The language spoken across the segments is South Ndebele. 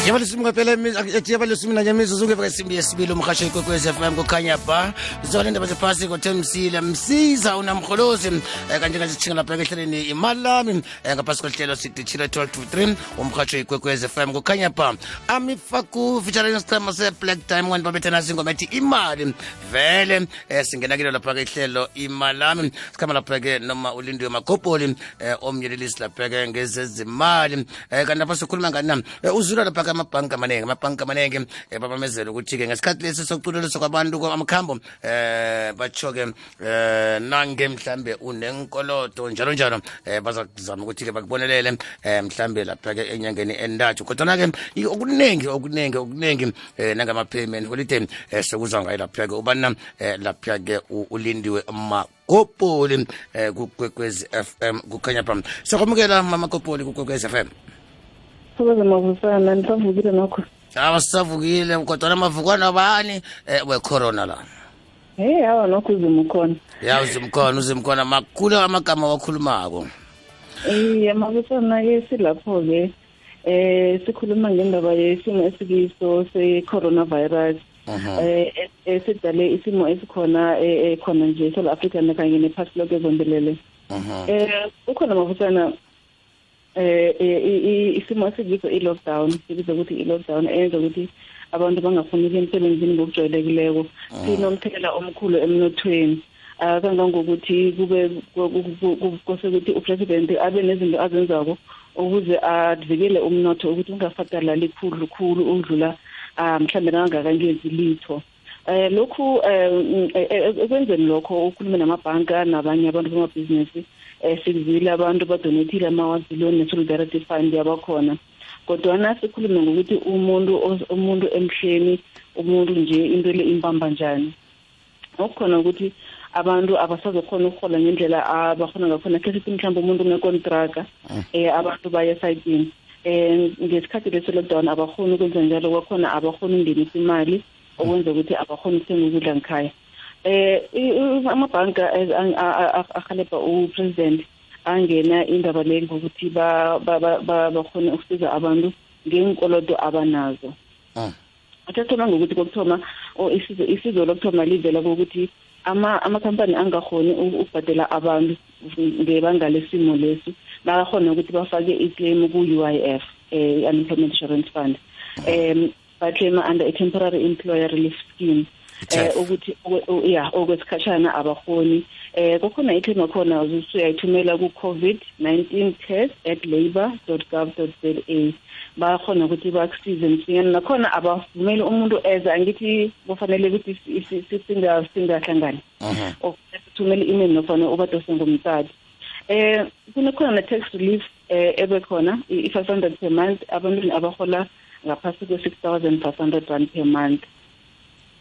Yabali simngapela ethi yabali simina nyamizo zuke vasimbi yesibili umkhasho ikwekwezi FM kukhanya ba zona indaba zephasi ngoThemsile msiza unamkholozi kanje ngasithinga lapha ehleleni imali lami ngaphasi kwehlelo sidithile 12 to 3 umkhasho ikwekwezi FM kukhanya ba amifaku featuring isiqhema se-Black Diamond babethana singoma ethi imali vele singena kilo lapha ehlelo imali lami sikhama lapha ke noma ulindiwe makopoli omyelelisi lapha ke ngezezimali kanti lapha sikhuluma ngani uzula lapha amabhanka amanenge babamezela ukuthi ke ngesikhathi lesi sokuculeliswa kwabantu kwamakhambo batsho-ke nange mhlambe unenkoloto njalo bazakuzama ukuthi ke bakubonelele mhlambe lapha-ke enyangeni entathu kodwana-ke okuningi nangama-payment holiday sokuzwa ngayo lapha-ke ubana lapha-ke ulindiwe makopoli kukwekwezi FM kukhanya phambi siyakwamukela mama kopoli kukwekwezi FM. Sokuze mavusana nisavukile nokho. Sisavukile kodwa amavukwana bani we-corona la. Hawa nokho uzimkhona. Ya uzimkhona makhulu amagama wakhulumako. Mavusana ke silapho ke sikhuluma ngendaba yesimo esikiso se-coronavirus. Esidale isimo esikhona khona nje South Africa kanye nephasi lonke zombelele. Ukhona mavusana isimo esikiso i-lockdown sibiza ukuthi i-lockdown eyenza ukuthi abantu bangafuni ukuya emsebenzini ngokujwayelekileko sinomthelela omkhulu emnothweni kangangokuthi kose ukuthi upresident abe nezinto azenzako ukuze avikele umnotho ukuthi ungafatalali khulu udlula mhlambe nangakangenzi litho lokhu ekwenzeni lokho ukhulume namabhanka nabanye abantu bamabhizinisi sikuzile abantu badonethile amawaziliyoni ne-solidarity fund yabakhona kodwana sikhulume ngokuthi umuntu emhleni umuntu nje into le impamba njani okukhona ukuthi abantu abasazokhona ukuhola ngendlela abakhona ngakhona khe sithi mhlawumbe umuntu unekontraka abantu baya esayitini ngesikhathi lesi-lockdown abakhoni ukwenza njalo kwakhona abakhoni ukungenisa imali okwenza ukuthi abakhoni ukuthenga ukudla ngikhaya amabhanka ahalebha upresident angena indaba le ngokuthi bakhone ukusiza abantu ngenkolodo abanazo athathoma ngokuthi kokuthoma isizo lokuthoma livela kokuthi amakhampani angakhoni ukubhadela abantu ngebanga lesimo lesi bakakhona ukuthi bafake i-claim ku-UIF unemployment insurance fund baclaima under a temporary employer relief scheme ukuthi okwesikhashana abakhoni kokhona iclaim akhona usuyayithumela ku-COVID-19 test@labour.gov.za bakhona ukuthi bakusize msinyane nakhona abavumeli umuntu eza angithi kufanele ukuthi singahlangani sithumele i-email nofana ubadose ngomtadi kunekhona ne-tax relief ebekhona i-500 per month abantwini abahola ngaphasi kwe-6,500 rand per month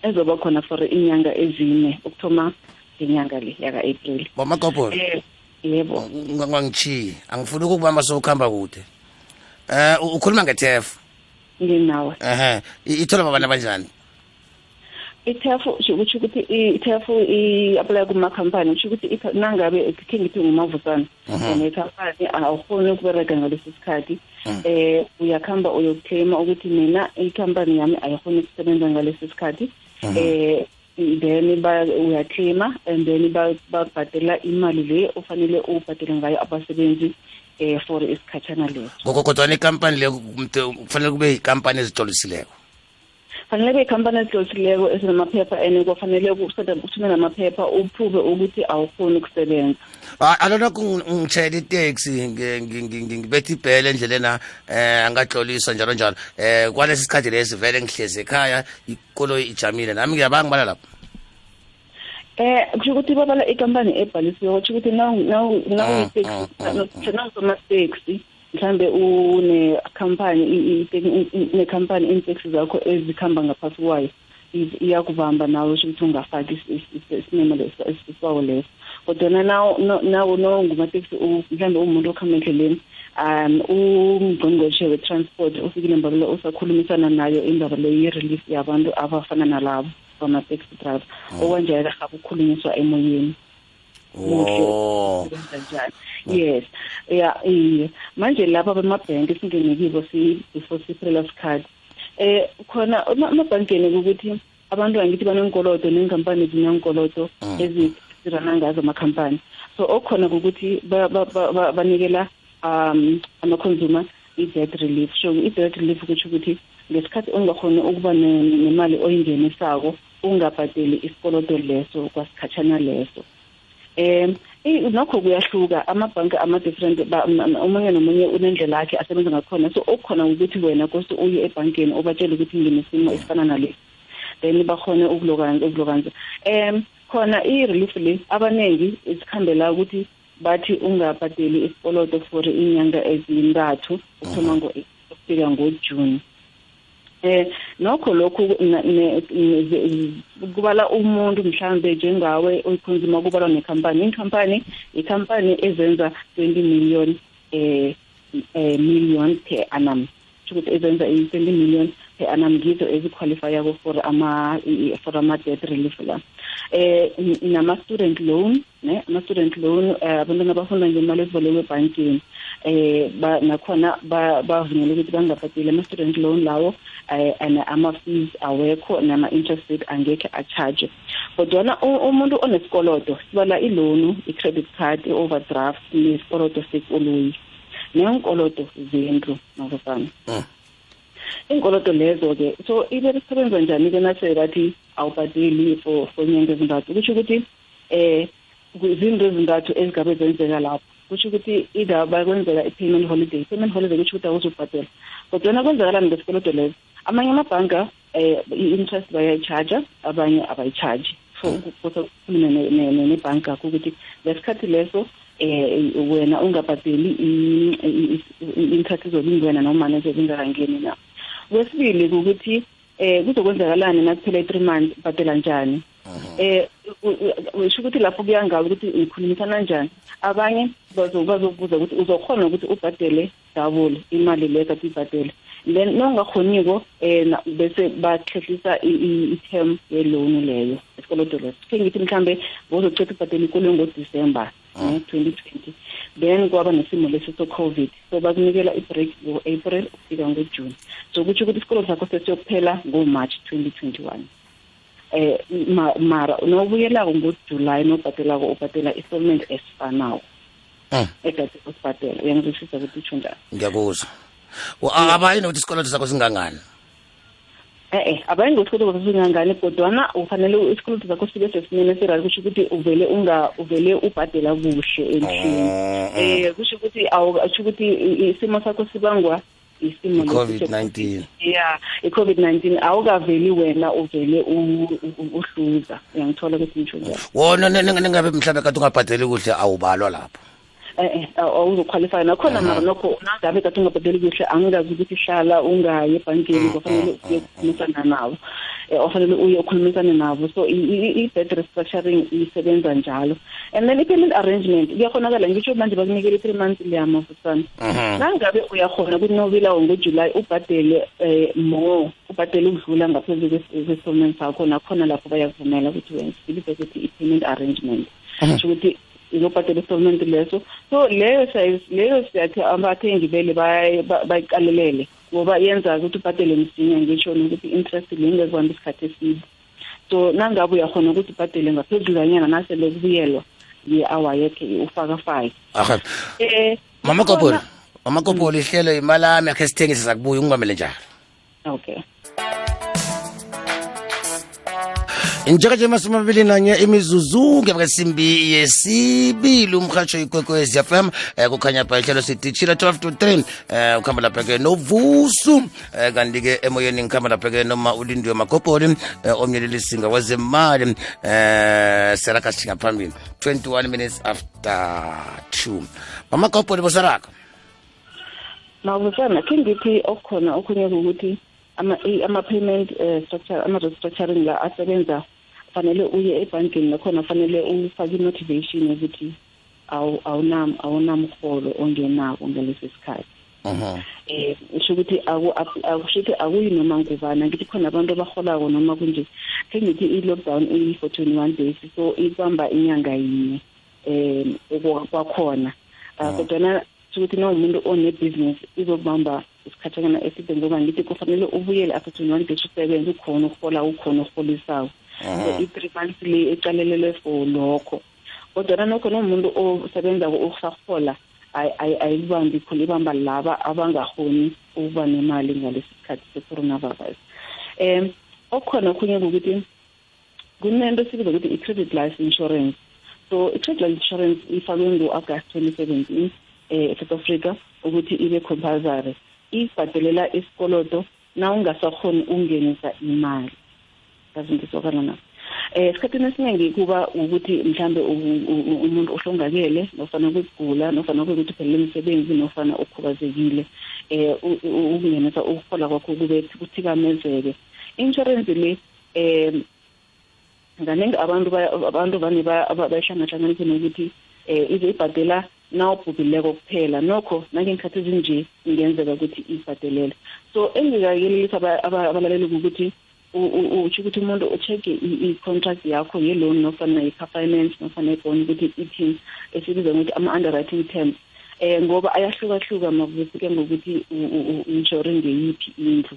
ezoba khona for inyanga ezine ukuthoma ngenyanga le yaka-April. Bomakopolo yebo ngangitshiyi angifuni ukukubamba sokuhamba kude ukhuluma ngeTEF nginawe ithola babana banjani iTEF usho ukuthi iTEF i-apply kuma-company usho ukuthi nangabe khe ngithi ngumavusana nekhampani awukhoni ukubereka ngalesi sikhathi uyakhamba uyokuclaima ukuthi mina ikhampani yami ayikhoni ukusebenza ngalesi sikhathi then uyaclaima and then babhadela imali le ufanele ubhadele ngayo abasebenzi for isikhatshana leso kodwana ikampani le kufanele kube yikampani ezitolisileko fanele kube yikampani ezitolisileko ezinamaphepha and kufanele uthumele amaphepha uphuve ukuthi awukhoni ukusebenza alona ngitshayela itaxi ngibetha ibhele endlelena angatloliswa njalo kwalesi sikhathi lesi vele ngihlezi ekhaya ikoloyi ijamile nami ngiyabanga bala lapho kusho ukuthi babala ikampani ebhalisiwe kusho ukuthi nawusoma-taxi mhlambe nekhampani iinteksi zakho ezikhamba ngaphasi kwayo iyakubamba nawe usho ukuthi ungafaki isimemo esibawo leso kodwana nawo ngumateksi mhlambe umuntu okhamba endleleni ungqongqoshe we-transport ufikile mbabelo usakhulumisana nayo indaba le ye-relief yabantu abafana nalabo bama-taxi driver okwanjalo haba ukukhulunyiswa emoyeni Oh. Yes. Yeah, manje lapha bemabhenki singene kibo before siphela sikhathi. Khona amabhankeni ukuthi abantu angithi banenkolodo nenkampani zinenkolodo ezirana ngazo amakhampani. So okhona ukuthi banikela ama-consumer i-debt relief. So i-debt relief kutsho ukuthi ngesikhathi ungakhona ukuba nemali oyingenisako ungabhadeli isikolodo leso kwasikhatshana leso. Nokho kuyahluka amabhanki ama-different omunye nomunye unendlela yakhe asebenza ngakhona. So okukhona ukuthi wena kose uye ebhankeni ubatshele ukuthi nginesimo esifana nalesi, then bakhone ukulokanza. Khona i-relief le abanengi isikhambela ukuthi bathi ungabhadeli isikolodo for inyanga ezintathu ukuthoma ukufika ngoJune. Nokho lokhu kubala umuntu mhlambe njengawe oyikhonzima kubalwa nekhampani ikhampani ezenza 20 million per annum. Ukuthi ezenza 20 million per annum ngizo eziqualifyako for ama-debt relief la. Nama-student loan, ama-student loan abantwana abafunda ngemali ezibolekwe ebhankini nakhona bavunyelwe ukuthi bangabhadeli ama-student loan lawo ama-fees awekho nama-interest rate angekhe a-charge. Kodwana umuntu onesikolodo sibala i-loan, i-credit card, i-overdraft nesikolodo sekoloyi neenkolodo zendlu nokufana. Inkolodo lezo-ke so ibesebenza njani-ke nase bathi awubhadeli for inyanga ezintathu? Kusho ukuthi izinto ezintathu ezigabe zenzeka lapho. Kusho ukuthi either bakwenzeka i-payment holiday kusho ukuthi awuzubhadela. Kodwana kwenzakalani ngesikolodo lezo? Amanye amabhanka i-interest bayayi-charge, abanye abayi-charge. So kukhuluma nebhanka yakho ukuthi ngesikhathi leso wena ungabhadeli i-interest izolingwena noma nezolingakangeni na. Kwesibili ukuthi kuzokwenzakalani nakuphela i-3 months bhadela njani. Usho ukuthi lapho kuyangabe ukuthi ukhulumisana njani. Abanye bazobuza ukuthi uzokhona ukuthi ubhadele double imali leyo kade uyibhadele. Then nongakhoniko bese bahlehlisa i-term ye-loan leyo esikolodo leso. Ngithi mhlambe bozocela ubhadela ikolo ngoDisemba 2020. Then kwaba nesimo lesi so-COVID, so bakunikela i-break ngo-April ukufika ngoJune. So kutsho ukuthi isikolo sakho sesiyokuphela ngoMarch 2021. Mara nobuyelako ngoJuly nobhatelako ubhadela installment esifanayo ekade usibhadela. Uyangizwisisa ukuthi utsho njani? Ngiyakuzwa. Abayini ukuthi isikolodo sakho singangani? Abayini ukuthi isikolodo sakho singangani, kodwana ufanele isikolodo sakho sibe sesimeni esirali. Kusho ukuthi uvele ubhadela kuhle endlini. Kusho ukuthi isimo sakho sibangwa isimo COVID-19. Yeah, i-COVID-19 awukaveli wena uvele uhluza. Uyangithola ukuthi ngisho njalo. Wona ningabe mhlawumbe kade ungabhadeli kuhle awubalwa lapho. Awuzoqualify nakhona mara nokho nangabe kade ungabhadeli kuhle angikazi ukuthi hlala ungaye ebhankini kufanele ukhulumisane nabo. Ofanele uye ukhulumisane nabo. So i-debt restructuring isebenza njalo. And then i-payment arrangement kuyakhonakala ngisho manje bakunikela 3 months leyama mfusana. Nangabe uyakhona ukuthi nobila ngoJuly ubhadele ubhadele ukudlula ngaphezulu kwe-installment sakho nakhona lapho bayakuvumela ukuthi wena sibise ukuthi i-payment arrangement. Kusho ukuthi izobhadela installment leso. So leyo siyathi abathengi vele bayiqalelele ngoba yenza ukuthi ubhadele msinya ngisho ukuthi interest lingekubamba isikhathi eside. So nangabe uyakhona ukuthi ubhadele ngaphezulu kanyana nasele kubuyelwa ye-hour yakhe ufaka 5. Mama Kopoli ihlelo imali yami yakhe sithengise sakubuya ungibambele njalo. Okay. Njenganje masumabili nanye imizuzu ngebesimbi yesibili umkhatsho ikwekwezi FM kukhanya pha ihlelo sidishila 12 to 3 ukhamba lapha ke novusu kanti ke emoyeni ngikhamba lapha ke noma ulindiwe Makopoli omnyeleli singa wezemali seraka singaphambili 21 minutes after 2. Mama Kopoli bosaraka mawuzana kingithi okukhona okunye ukuthi ama-payment structure ama-restructuring la asebenza fanele uye ebhankini nakhona fanele ufake i-motivation yokuthi awunamholo ongenako ngalesi sikhathi. Usho ukuthi akushithi akuyi noma ngubana ngithi khona abantu abaholako noma kunje. Ngithi i-lockdown for 21 days so ibamba inyanga yinye. kwakhona kodwa ukuthi umuntu one-business izokubamba isikhathana eside ngoba ngithi kufanele ubuyele after 21 days usebenze ukhona ukuholisayo i-3 months le ecalelelwe for lokho kodwa nokho nomuntu osebenza ukusahola ayibambi khona ibamba laba abangahoni ukuba nemali ngalesi sikhathi se-coronavirus. Okukhona okhunye ukuthi kunento esibiza ukuthi i-credit life insurance. So i-credit life insurance ifakwe ngo-August 2017 eSouth Africa ukuthi ibe compulsory. Ibhadelela isikoloto na ungasakhoni ukungenisa imali. Ngizokana na. Esikhathini esiningi kuba ukuthi mhlambe umuntu ohlongakele nofana ukugula nofana ukuthi phela umsebenzi nofana ukhubazekile ukungenisa ukuhola kwakho kube kuthikamezeke. Insurance le nganingi abantu vane bayahlanganisa nokuthi izibhadela nawubhubhileko kuphela nokho nangenkathi ezinje ingenzeka ukuthi ibhadelele. So engikayelelisa abalaleli ukuthi uthi ukuthi umuntu ucheck i-contract yakho ye-loan nofana i-car finance nofana i-bond ukuthi ithini esibiza ukuthi ama-underwriting terms ngoba ayahlukahluka makufike ngokuthi u-insure ngeyiphi indlu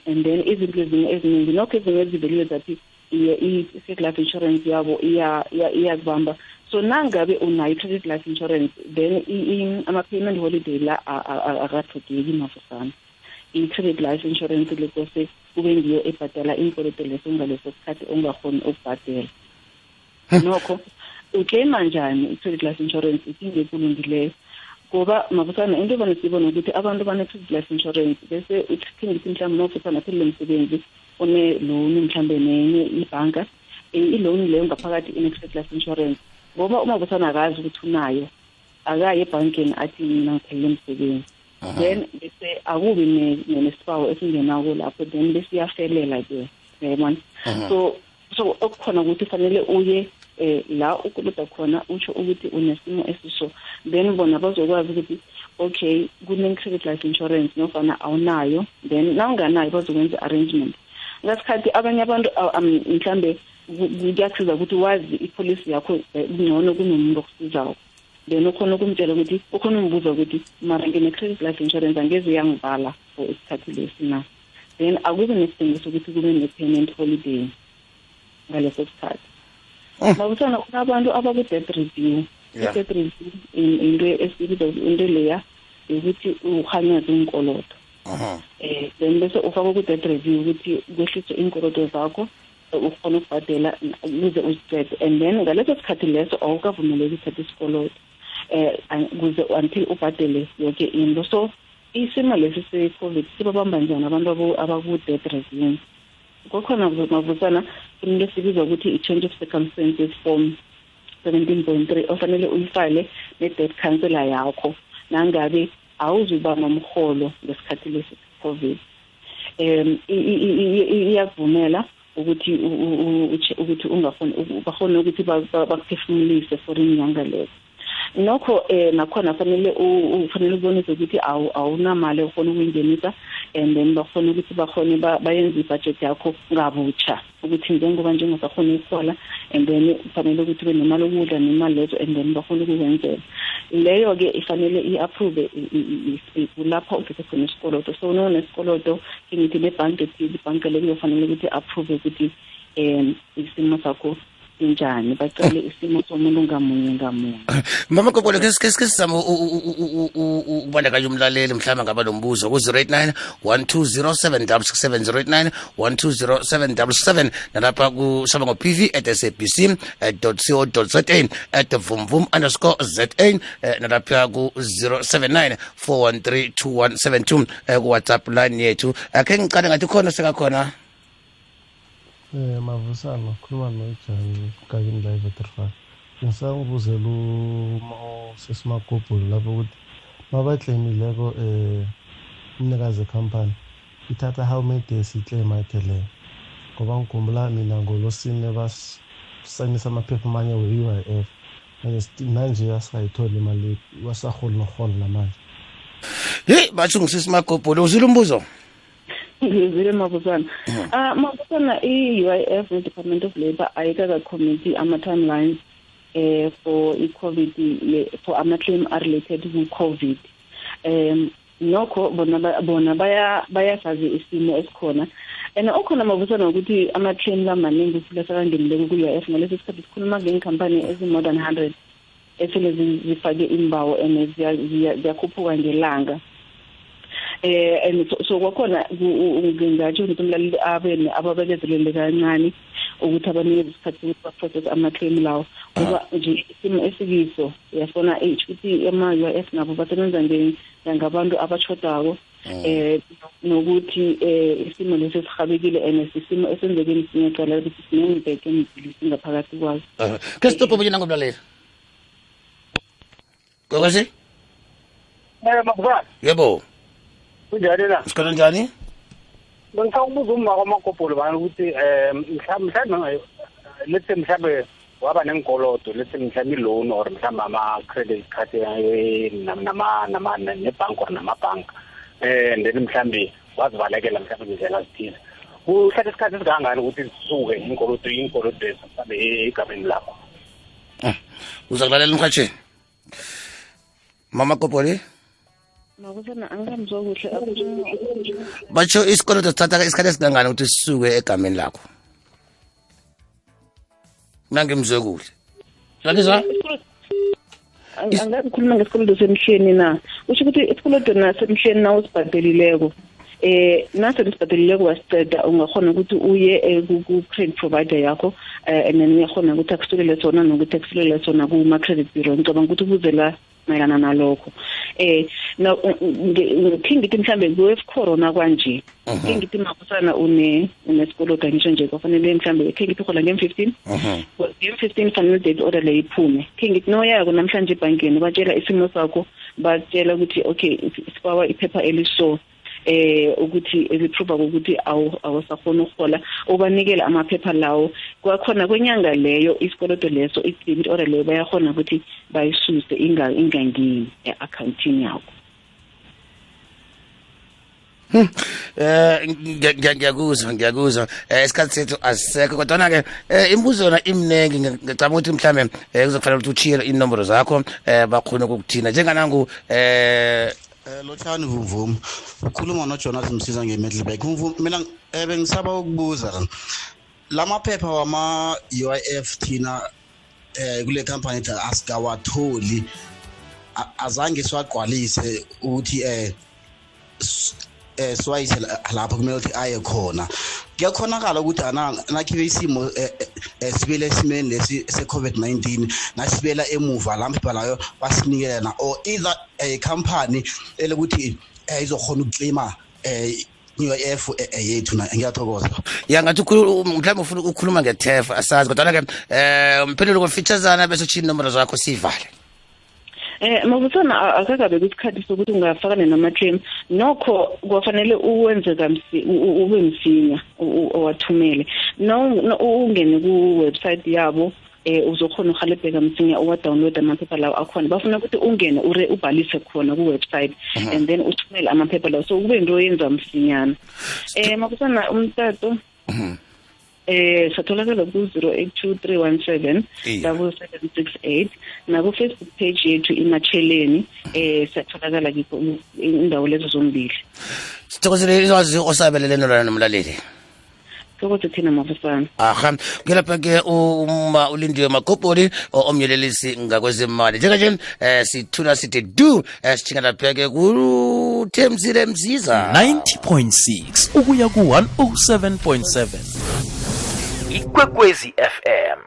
and then izinto eziningi nokho ezinye eziveliwe zathi i-credit life insurance yabo iyakubamba. So nangabe unayo i-credit life insurance then ama-payment holiday la akathodeki mafusana. I-credit life insurance lekose kube ngiyo ebhadala inkoloto leso ngaleso sikhathi ongahoni ukubhadela. Nokho uclaima njani i-credit life insurance iphinde kulungileyo ngoba mafusana into vane sibona ukuthi abantu bane-credit life insurance bese uthini mhlawumbe mawufusana phela umsebenzi one-loan mhlawumbe nenye ibhanka i-loan leyo ngaphakathi ine-credit life insurance ngoba uma busana akazi ukuthi unayo akaye ebhankeni athi mina ngiphelele umsebenzi then bese akubi nesipawu esingenako lapho then bese iyafelela ke yabona. So okukhona ukuthi fanele uye la ukuluda khona utsho ukuthi unesimo esiso then bona bazokwazi ukuthi okay kune-credit life insurance nofana awunayo then nawunganayo bazokwenza arrangement. Ngasikhathi abanye abantu mhlambe kuyakusiza ukuthi wazi ipolicy yakho ngcono kunomuntu okusizayo then ukhona ukumtshela ukuthi ukhona umbuza ukuthi mara ngine-credit life insurance angeze yangivala for isikhathi lesi na then akube nesidingo sokuthi kube ne-payment holiday ngaleso sikhathi. Mabusana kunabantu abaku-debt review. I-debt review into esibiza into leya ukuthi uhanyaze inkoloto then bese ufaka ku-debt review ukuthi kwehliswe inkoloto zakho ukhona ukubhadela ukuze uziqede and then ngaleso sikhathi leso awukavumeleki ukuthatha isikoloto kuze until ubhadele yonke into. So isimo lesi se-COVID sibabamba njani abantu abaku-debt review? Kukhona mavusana into esibiza ukuthi i-change of circumstances form 17.3 ofanele uyifile ne-debt counselor yakho nangabe awuzubama umholo ngesikhathi lesi COVID. Iyakuvumela ukuthi ungafuni bakhona ukuthi bakuphefumulise for inyanga lezo. Nokho nakhona fanele ubonise ukuthi awunamali ofuna ukuyingenisa and then bakhona ukuthi bayenze ibudget yakho ngabutsha ukuthi njengoba njengosakhona ukuhola and then fanele ukuthi ube nemali okudla nemali lezo and then bakhona ukukwenzela leyo ke ifanele i-approve kulapho ufike khona isikoloto. So nesikoloto ngithi nebhanki ibhanki leyo kufanele ukuthi approve ukuthi isimo sakho njani bacale isimo somuntu ngamunye. Mama Kopolo ke sizama ukubandakanya umlaleli mhlawumbe ngaba lombuzo ku 089 1207667 1207777 nalapha kusaba ngo pv@sabc.co.za @vumvum_za nalapha ku 079 4132172 ku WhatsApp line yethu. Ake ngicane ngathi khona sekakhona Mavusana khuluma noJani Gagini live at 35 ngisangibuzela sesimakopolo lapho ukuthi mabaklaimileko umnikazi company ithatha how many days iclaim ayithele ngoba ngikhumbula mina ngolosine basayinisa amaphepha amanye we-UIF manje asayithola imali wasaholi noholo namanje. Hey bathi ngisisimakopolo uzile umbuzo ngizile mabuzana. Mabuzana i-UIF ne-Department of Labour ayikaka committee ama-timelines for i-COVID for ama-claim are-related ku-COVID. Nokho bona bayasazi isimo esikhona and okhona mabusana ukuthi ama-claim lamaningi futhi sekangenileke ku-UIF ngaleso sikhathi sikhuluma ngey'nkampani ezi-more than 100 esele zifake imbawo and ziyakhuphuka ngelanga. And so kwakhona ngingatsho ukuthi umlaleli ababekezelele kancane ukuthi abanikeza isikhathi ukuthi baprocess ama-claim lawo ngoba nje isimo esikiso uyafona ukuthi ama-UIF nabo basebenza njengabantu abashodako nokuthi isimo lesi sihabekile and isimo esenzeke ngicala ukuthi sinengibheke emibili singaphakathi kwazo. Ke stop ubuyena ngomlaleli. Kokwazi? Makubani? Yebo. Kunjani la? Sikhona njani? Ngifuna ukubuza umma kwamakopolo bani ukuthi mhlawumbe let's say mhlawumbe waba nenkolodo let's say mhlawumbe loan or mhlawumbe ama credit card nebhank or namabhanka and then mhlawumbe wazibalekela mhlawumbe indlela zithize. Kuhlatha isikhathi esikangani ukuthi zisuke inkolodo mhlawumbe egameni lakho? Uzakulalela umkhatsheni. Mama Kopoli? Makusana angamzwa kuhle batsho isikoloto sithatha isikhathi esingangani ukuthi sisuke egameni lakho? Nangimzwe kuhle. Lalisa? Angakhuluma ngesikoloto semhleni na. Usho ukuthi isikoloto nasemhleni na usibhadelileko. Nase lisibhadelileko wasiceda ungakhona ukuthi uye ku-credit provider yakho and then uyakhona ukuthi akusulele sona nokuthi akusulele sona kuma-credit bureau. Ngicabanga ukuthi ubuzela mayelana nalokho. Ngithi mhlambe kwe-corona kwanje ngithi makusana unesikoloto ngisho nje kufanele mhlambe ngithi khola ngem-15 ngem-15 fanele date order le iphume ngithi noyako namhlanje ebhankeni batshela isimo sakho batshela ukuthi okay sibawa iphepha eliso ukuthi eliprova ukuthi awusakhona ukuhola ubanikela amaphepha lawo kwakhona kwenyanga leyo isikoloto leso i-debit order leyo bayakhona ukuthi bayisuse ingangeni e-accountini yakho. Ngiyakuzwa isikhathi sethu asisekho kodwa ke imibuzo yona imnengi ngicabanga ukuthi mhlambe kuzokufanele ukuthi uchiye inombolo zakho bakhona ukukuthina njenganangu Lotshani Vumvum ukhuluma noJonas Msiza ngeMiddelburg. Vumvum mina bengisaba ukubuza lamaphepha wama UIF thina kule company asikawatholi azange siwagqwalise ukuthi swayise lapho kumele ukuthi aye khona. Kuyakhonakala ukuthi nakhibe isimo sibele esimeni lesi se-COVID-19 nasibela emuva lamphepha layo basinikela or either a company elokuthi izokhona ukuclaima UIF yethu na. Ngiyathokoza. Ngathi mhlawumbe ufuna ukukhuluma ngeTEF asazi kodwa ke umphendula ngofeaturesana bese uchiya inombolo zakho sivale. Mabusana akakabe kusikhathi sokuthi ungafakane nama-claim nokho kwafanele uwenze ube msinya owathumele ungene ku-website yabo uzokhona uhalebheka msinya uwa-download amaphepha lawo akhona bafuna ukuthi ungene ubhalise khona ku-website and then uthumele amaphepha lawo so kube into oyenza msinyana. Mabusana umtato satholakala ku-0823177768 naku-Facebook page yethu iMatsheleni satholakala kikho indawo lezo zombili. Sithokozele izwazi osabelele nolana nomlaleli. Thokoze thina mafusana. Aha ngelapha ke uma ulindiwe Makopoli omyelelisi ngakwezemali njenge sithula sithi do sithinga lapha ke ku Themsile Msiza 90.6 ukuya ku 107.7 Ikwekwezi FM.